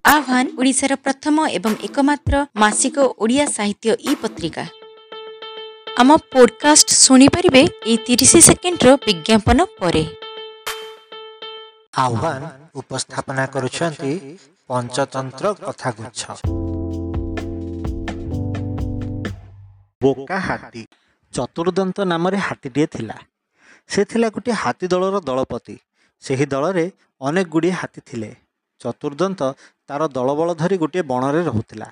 ଆହ୍ୱାନ ଓଡ଼ିଶାର ପ୍ରଥମ ଏବଂ ଏକମାତ୍ର ମାସିକ ଓଡ଼ିଆ ସାହିତ୍ୟ ଇ ପତ୍ରିକା। ଆମ ପୋଡକାଷ୍ଟ ଶୁଣିପାରିବେ ଏଇ 30 ସେକେଣ୍ଡର ବିଜ୍ଞାପନ ପରେ। ଆହ୍ୱାନ ଉପସ୍ଥାପନା କରୁଛନ୍ତି ପଞ୍ଚତନ୍ତ୍ର କଥାଗୁଚ୍ଛ। ବୋକା ହାତୀ। ଚତୁର୍ଦନ୍ତ ନାମରେ ହାତୀଟିଏ ଥିଲା। ସେ ଥିଲା ଗୋଟିଏ ହାତୀ ଦଳର ଦଳପତି। ସେହି ଦଳରେ ଅନେକ ଗୁଡ଼ିଏ ହାତୀ ଥିଲେ। ଚତୁର୍ଦନ୍ତ ତାର ଦଳବଳ ଧରି ଗୋଟିଏ ବଣରେ ରହୁଥିଲା।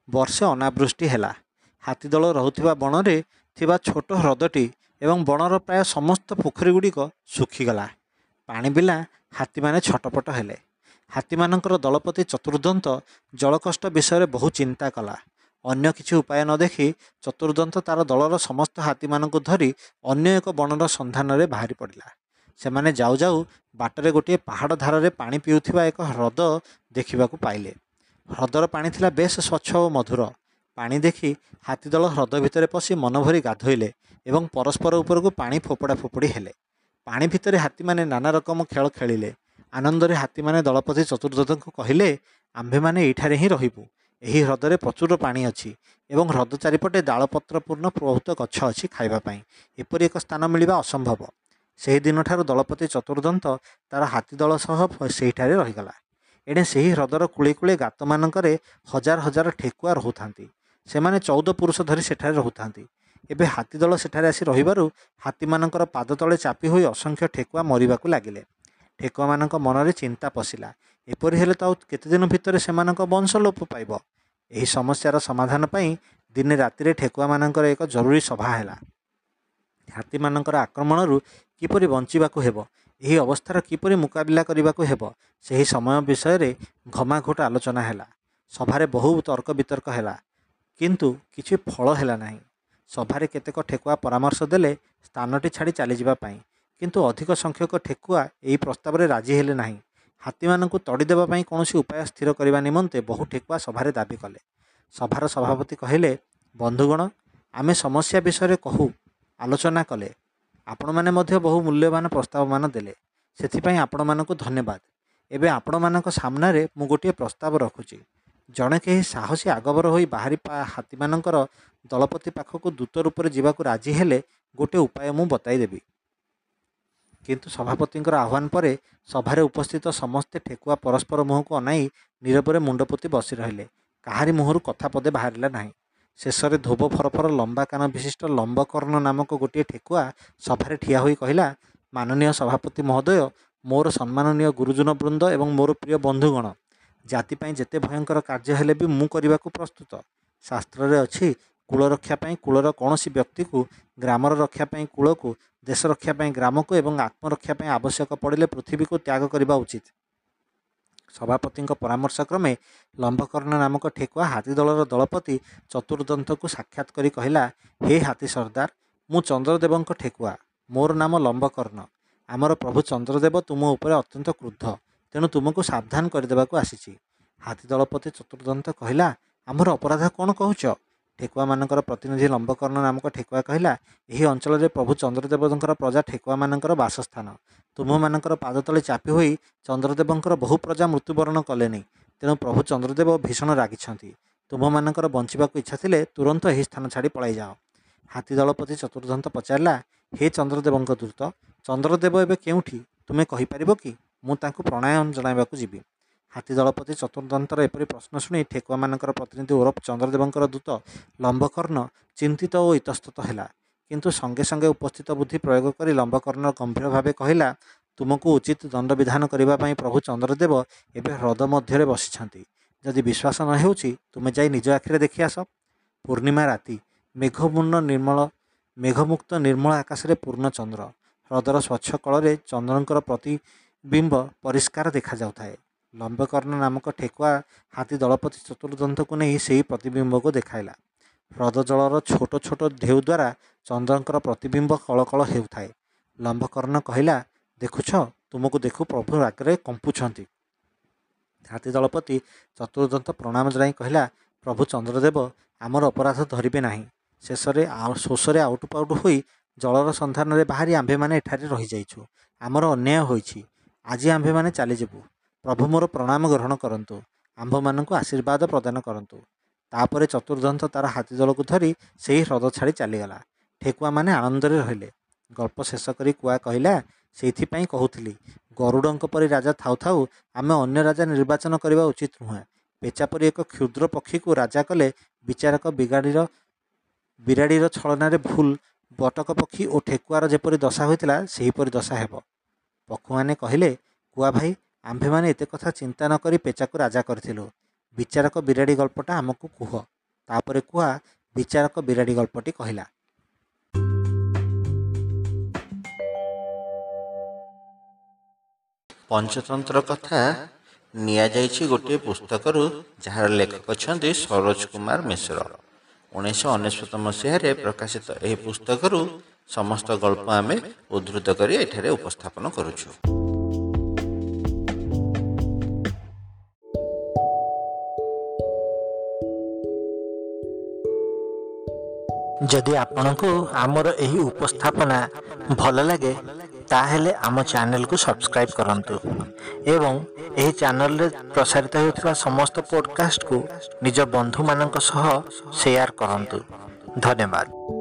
ବର୍ଷେ ଅନାବୃଷ୍ଟି ହେଲା। ହାତୀଦଳ ରହୁଥିବା ବଣରେ ଥିବା ଛୋଟ ହ୍ରଦଟି ଏବଂ ବଣର ପ୍ରାୟ ସମସ୍ତ ପୋଖରୀଗୁଡ଼ିକ ଶୁଖିଗଲା। ପାଣି ବିନା ହାତୀମାନେ ଛଟପଟ ହେଲେ। ହାତୀମାନଙ୍କର ଦଳପତି ଚତୁର୍ଦନ୍ତ ଜଳକଷ୍ଟ ବିଷୟରେ ବହୁ ଚିନ୍ତା କଲା। ଅନ୍ୟ କିଛି ଉପାୟ ନ ଦେଖି ଚତୁର୍ଦନ୍ତ ତାର ଦଳର ସମସ୍ତ ହାତୀମାନଙ୍କୁ ଧରି ଅନ୍ୟ ଏକ ବଣର ସନ୍ଧାନରେ ବାହାରି ପଡ଼ିଲା। ସେମାନେ ଯାଉ ଯାଉ ବାଟରେ ଗୋଟିଏ ପାହାଡ଼ ଧାରରେ ପାଣି ପିଉଥିବା ଏକ ହ୍ରଦ ଦେଖିବାକୁ ପାଇଲେ। ହ୍ରଦର ପାଣି ଥିଲା ବେଶ ସ୍ୱଚ୍ଛ ଓ ମଧୁର। ପାଣି ଦେଖି ହାତୀଦଳ ହ୍ରଦ ଭିତରେ ପଶି ମନଭରି ଗାଧୋଇଲେ ଏବଂ ପରସ୍ପର ଉପରକୁ ପାଣି ଫୋପଡ଼ା ଫୋପଡ଼ି ହେଲେ। ପାଣି ଭିତରେ ହାତୀମାନେ ନାନା ରକମ ଖେଳ ଖେଳିଲେ। ଆନନ୍ଦରେ ହାତୀମାନେ ଦଳପତି ଚତୁର୍ଦନ୍ତଙ୍କୁ କହିଲେ, ଆମ୍ଭେମାନେ ଏଇଠାରେ ହିଁ ରହିବୁ। ଏହି ହ୍ରଦରେ ପ୍ରଚୁର ପାଣି ଅଛି ଏବଂ ହ୍ରଦ ଚାରିପଟେ ଡାଳପତ୍ରପୂର୍ଣ୍ଣ ବହୁତ ଗଛ ଅଛି ଖାଇବା ପାଇଁ। ଏପରି ଏକ ସ୍ଥାନ ମିଳିବା ଅସମ୍ଭବ। ସେହି ଦିନଠାରୁ ଦଳପତି ଚତୁର୍ଦନ୍ତ ତାର ହାତୀଦଳ ସହ ସେହିଠାରେ ରହିଗଲା। ଏଣେ ସେହି ହ୍ରଦର କୂଳେ କୂଳେ ଗାତମାନଙ୍କରେ ହଜାର ହଜାର ଠେକୁଆ ରହୁଥାନ୍ତି। ସେମାନେ 14 ପୁରୁଷ ଧରି ସେଠାରେ ରହୁଥାନ୍ତି। ଏବେ ହାତୀଦଳ ସେଠାରେ ଆସି ରହିବାରୁ ହାତୀମାନଙ୍କର ପାଦ ତଳେ ଚାପି ହୋଇ ଅସଂଖ୍ୟ ଠେକୁଆ ମରିବାକୁ ଲାଗିଲେ। ଠେକୁଆମାନଙ୍କ ମନରେ ଚିନ୍ତା ପଶିଲା, ଏପରି ହେଲେ ତ ଆଉ କେତେଦିନ ଭିତରେ ସେମାନଙ୍କ ବଂଶ ଲୋପ ପାଇବ। ଏହି ସମସ୍ୟାର ସମାଧାନ ପାଇଁ ଦିନେ ରାତିରେ ଠେକୁଆମାନଙ୍କର ଏକ ଜରୁରୀ ସଭା ହେଲା। ହାତୀମାନଙ୍କର ଆକ୍ରମଣରୁ କିପରି ବଞ୍ଚିବାକୁ ହେବ, ଏହି ଅବସ୍ଥାର କିପରି ମୁକାବିଲା କରିବାକୁ ହେବ, ସେହି ସମୟ ବିଷୟରେ ଘମାଘୋଟ ଆଲୋଚନା ହେଲା। ସଭାରେ ବହୁ ତର୍କ ବିତର୍କ ହେଲା, କିନ୍ତୁ କିଛି ଫଳ ହେଲା ନାହିଁ। ସଭାରେ କେତେକ ଠେକୁଆ ପରାମର୍ଶ ଦେଲେ ସ୍ଥାନଟି ଛାଡ଼ି ଚାଲିଯିବା ପାଇଁ, କିନ୍ତୁ ଅଧିକ ସଂଖ୍ୟକ ଠେକୁଆ ଏହି ପ୍ରସ୍ତାବରେ ରାଜି ହେଲେ ନାହିଁ। ହାତୀମାନଙ୍କୁ ତଡ଼ିଦେବା ପାଇଁ କୌଣସି ଉପାୟ ସ୍ଥିର କରିବା ନିମନ୍ତେ ବହୁ ଠେକୁଆ ସଭାରେ ଦାବି କଲେ। ସଭାର ସଭାପତି କହିଲେ, ବନ୍ଧୁଗଣ, ଆମେ ସମସ୍ୟା ବିଷୟରେ କହୁ ଆଲୋଚନା କଲେ। ଆପଣମାନେ ମଧ୍ୟ ବହୁ ମୂଲ୍ୟବାନ ପ୍ରସ୍ତାବମାନ ଦେଲେ, ସେଥିପାଇଁ ଆପଣମାନଙ୍କୁ ଧନ୍ୟବାଦ। ଏବେ ଆପଣମାନଙ୍କ ସାମ୍ନାରେ ମୁଁ ଗୋଟିଏ ପ୍ରସ୍ତାବ ରଖୁଛି। ଜଣେ କେହି ସାହସୀ ଆଗଭର ହୋଇ ବାହାରି ହାତୀମାନଙ୍କର ଦଳପତି ପାଖକୁ ଦୂତ ରୂପରେ ଯିବାକୁ ରାଜି ହେଲେ ଗୋଟିଏ ଉପାୟ ମୁଁ ବତାଇଦେବି। କିନ୍ତୁ ସଭାପତିଙ୍କର ଆହ୍ୱାନ ପରେ ସଭାରେ ଉପସ୍ଥିତ ସମସ୍ତେ ଠେକୁଆ ପରସ୍ପର ମୁହଁକୁ ଅନାଇ ନୀରବରେ ମୁଣ୍ଡ ପୋତି ବସି ରହିଲେ। କାହାରି ମୁହଁରୁ କଥା ପଦେ ବାହାରିଲା ନାହିଁ। ଶେଷରେ ଧୋବ ଫରଫର ଲମ୍ବା କାନ ବିଶିଷ୍ଟ ଲମ୍ବକର୍ଣ୍ଣ ନାମକ ଗୋଟିଏ ଠେକୁଆ ସଭାରେ ଠିଆ ହୋଇ କହିଲା, ମାନନୀୟ ସଭାପତି ମହୋଦୟ, ମୋର ସମ୍ମାନନୀୟ ଗୁରୁଜନ ବୃନ୍ଦ ଏବଂ ମୋର ପ୍ରିୟ ବନ୍ଧୁଗଣ, ଜାତି ପାଇଁ ଯେତେ ଭୟଙ୍କର କାର୍ଯ୍ୟ ହେଲେ ବି ମୁଁ କରିବାକୁ ପ୍ରସ୍ତୁତ। ଶାସ୍ତ୍ରରେ ଅଛି, କୂଳ ରକ୍ଷା ପାଇଁ କୂଳର କୌଣସି ବ୍ୟକ୍ତିକୁ, ଗ୍ରାମର ରକ୍ଷା ପାଇଁ କୂଳକୁ, ଦେଶ ରକ୍ଷା ପାଇଁ ଗ୍ରାମକୁ ଏବଂ ଆତ୍ମରକ୍ଷା ପାଇଁ ଆବଶ୍ୟକ ପଡ଼ିଲେ ପୃଥିବୀକୁ ତ୍ୟାଗ କରିବା ଉଚିତ। ସଭାପତିଙ୍କ ପରାମର୍ଶ କ୍ରମେ ଲମ୍ବକର୍ଣ୍ଣ ନାମକ ଠେକୁଆ ହାତୀଦଳର ଦଳପତି ଚତୁର୍ଦନ୍ତକୁ ସାକ୍ଷାତ କରି କହିଲା, ହେ ହାତୀ ସର୍ଦ୍ଦାର, ମୁଁ ଚନ୍ଦ୍ରଦେବଙ୍କ ଠେକୁଆ। ମୋର ନାମ ଲମ୍ବକର୍ଣ୍ଣ। ଆମର ପ୍ରଭୁ ଚନ୍ଦ୍ରଦେବ ତୁମ ଉପରେ ଅତ୍ୟନ୍ତ କ୍ରୁଦ୍ଧ, ତେଣୁ ତୁମକୁ ସାବଧାନ କରିଦେବାକୁ ଆସିଛି। ହାତୀ ଦଳପତି ଚତୁର୍ଦନ୍ତ କହିଲା, ଆମର ଅପରାଧ କ'ଣ କହୁଛ? ଠେକୁଆମାନଙ୍କର ପ୍ରତିନିଧି ଲମ୍ବକର୍ଣ୍ଣ ନାମକ ଠେକୁଆ କହିଲା, ଏହି ଅଞ୍ଚଳରେ ପ୍ରଭୁ ଚନ୍ଦ୍ରଦେବଙ୍କର ପ୍ରଜା ଠେକୁଆମାନଙ୍କର ବାସସ୍ଥାନ। ତୁମ୍ଭମାନଙ୍କର ପାଦ ତଳେ ଚାପି ହୋଇ ଚନ୍ଦ୍ରଦେବଙ୍କର ବହୁ ପ୍ରଜା ମୃତ୍ୟୁବରଣ କଲେନି, ତେଣୁ ପ୍ରଭୁ ଚନ୍ଦ୍ରଦେବ ଭୀଷଣ ରାଗିଛନ୍ତି। ତୁମ୍ଭମାନଙ୍କର ବଞ୍ଚିବାକୁ ଇଚ୍ଛା ଥିଲେ ତୁରନ୍ତ ଏହି ସ୍ଥାନ ଛାଡ଼ି ପଳାଇ ଯାଅ। ହାତୀ ଦଳପତି ଚତୁର୍ଦନ୍ତ ପଚାରିଲା, ହେ ଚନ୍ଦ୍ରଦେବଙ୍କ ଦୂତ, ଚନ୍ଦ୍ରଦେବ ଏବେ କେଉଁଠି ତୁମେ କହିପାରିବ କି? ମୁଁ ତାଙ୍କୁ ପ୍ରଣାମ ଜଣାଇବାକୁ ଯିବି। ହାତୀ ଦଳପତି ଚତୁର୍ଦନ୍ତର ଏପରି ପ୍ରଶ୍ନ ଶୁଣି ଠେକୁଆମାନଙ୍କର ପ୍ରତିନିଧି ଓରଫ ଚନ୍ଦ୍ରଦେବଙ୍କର ଦୂତ ଲମ୍ବକର୍ଣ୍ଣ ଚିନ୍ତିତ ଓ ଇତସ୍ତତ ହେଲା। କିନ୍ତୁ ସଙ୍ଗେ ସଙ୍ଗେ ଉପସ୍ଥିତ ବୁଦ୍ଧି ପ୍ରୟୋଗ କରି ଲମ୍ବକର୍ଣ୍ଣ ଗମ୍ଭୀର ଭାବେ କହିଲା, ତୁମକୁ ଉଚିତ ଦଣ୍ଡବିଧାନ କରିବା ପାଇଁ ପ୍ରଭୁ ଚନ୍ଦ୍ରଦେବ ଏବେ ହ୍ରଦ ମଧ୍ୟରେ ବସିଛନ୍ତି। ଯଦି ବିଶ୍ୱାସ ନ ହେଉଛି, ତୁମେ ଯାଇ ନିଜ ଆଖିରେ ଦେଖି ଆସ। ପୂର୍ଣ୍ଣିମା ରାତି, ମେଘମୁକ୍ତ ନିର୍ମଳ ଆକାଶରେ ପୂର୍ଣ୍ଣଚନ୍ଦ୍ର। ହ୍ରଦର ସ୍ୱଚ୍ଛ କଳରେ ଚନ୍ଦ୍ରଙ୍କର ପ୍ରତିବିମ୍ବ ପରିଷ୍କାର ଦେଖାଯାଉଥାଏ। ଲମ୍ବକର୍ଣ୍ଣ ନାମକ ଠେକୁଆ ହାତୀ ଦଳପତି ଚତୁର୍ଦନ୍ତକୁ ନେଇ ସେହି ପ୍ରତିବିମ୍ବକୁ ଦେଖାଇଲା। ହ୍ରଦ ଜଳର ଛୋଟ ଛୋଟ ଢେଉ ଦ୍ୱାରା ଚନ୍ଦ୍ରଙ୍କର ପ୍ରତିବିମ୍ବ କଳକଳ ହେଉଥାଏ। ଲମ୍ବକର୍ଣ୍ଣ କହିଲା, ଦେଖୁଛ, ତୁମକୁ ଦେଖୁ ପ୍ରଭୁ ରାଗରେ କମ୍ପୁଛନ୍ତି। ହାତୀ ଦଳପତି ଚତୁର୍ଦନ୍ତ ପ୍ରଣାମ ଜଣାଇ କହିଲା, ପ୍ରଭୁ ଚନ୍ଦ୍ରଦେବ ଆମର ଅପରାଧ ଧରିବେ ନାହିଁ। ଶେଷରେ ଶୋଷରେ ଆଉଟୁ ପାଉଟୁ ହୋଇ ଜଳର ସନ୍ଧାନରେ ବାହାରି ଆମ୍ଭେମାନେ ଏଠାରେ ରହିଯାଇଛୁ। ଆମର ଅନ୍ୟାୟ ହୋଇଛି। ଆଜି ଆମ୍ଭେମାନେ ଚାଲିଯିବୁ। ପ୍ରଭୁ ମୋର ପ୍ରଣାମ ଗ୍ରହଣ କରନ୍ତୁ। ଆମ୍ଭମାନଙ୍କୁ ଆଶୀର୍ବାଦ ପ୍ରଦାନ କରନ୍ତୁ। ତାପରେ ଚତୁର୍ଦନ୍ତ ତା'ର ହାତୀ ଦଳକୁ ଧରି ସେହି ହ୍ରଦ ଛାଡ଼ି ଚାଲିଗଲା। ଠେକୁଆମାନେ ଆନନ୍ଦରେ ରହିଲେ। ଗଳ୍ପ ଶେଷ କରି କୁଆ କହିଲା, ସେଇଥିପାଇଁ କହୁଥିଲି, ଗରୁଡ଼ଙ୍କ ପରି ରାଜା ଥାଉ ଥାଉ ଆମେ ଅନ୍ୟ ରାଜା ନିର୍ବାଚନ କରିବା ଉଚିତ ନୁହେଁ। ପେଚା ପରି ଏକ କ୍ଷୁଦ୍ର ପକ୍ଷୀକୁ ରାଜା କଲେ ବିଚାରକ ବିରାଡ଼ିର ଛଳନାରେ ଭୁଲ ବଟକ ପକ୍ଷୀ ଓ ଠେକୁଆର ଯେପରି ଦଶା ହୋଇଥିଲା, ସେହିପରି ଦଶା ହେବ। ପକ୍ଷୁମାନେ କହିଲେ, କୁଆ ଭାଇ, ଆମ୍ଭେମାନେ ଏତେ କଥା ଚିନ୍ତା ନ କରି ପେଚାକୁ ରାଜା କରିଥିଲୁ। ବିଚାରକ ବିରାଡ଼ି ଗଳ୍ପଟା ଆମକୁ କୁହ। ତାପରେ କୁଆ ବିଚାରକ ବିରାଡ଼ି ଗଳ୍ପଟି କହିଲା। ପଞ୍ଚତନ୍ତ୍ର କଥା ନିଆଯାଇଛି ଗୋଟିଏ ପୁସ୍ତକରୁ, ଯାହାର ଲେଖକ ଅଛନ୍ତି ସରୋଜ କୁମାର ମିଶ୍ର। 1999 ମସିହାରେ ପ୍ରକାଶିତ ଏହି ପୁସ୍ତକରୁ ସମସ୍ତ ଗଳ୍ପ ଆମେ ଉଦ୍ଧୃତ କରି ଏଠାରେ ଉପସ୍ଥାପନ କରୁଛୁ। ଯଦି ଆପଣଙ୍କୁ ଆମର ଏହି ଉପସ୍ଥାପନା ଭଲ ଲାଗେ, ତାହେଲେ ଆମ ଚ୍ୟାନେଲକୁ ସବସ୍କ୍ରାଇବ୍ କରନ୍ତୁ ଏବଂ ଏହି ଚ୍ୟାନେଲରେ ପ୍ରସାରିତ ହେଉଥିବା ସମସ୍ତ ପଡ଼କାଷ୍ଟକୁ ନିଜ ବନ୍ଧୁମାନଙ୍କ ସହ ସେୟାର କରନ୍ତୁ। ଧନ୍ୟବାଦ।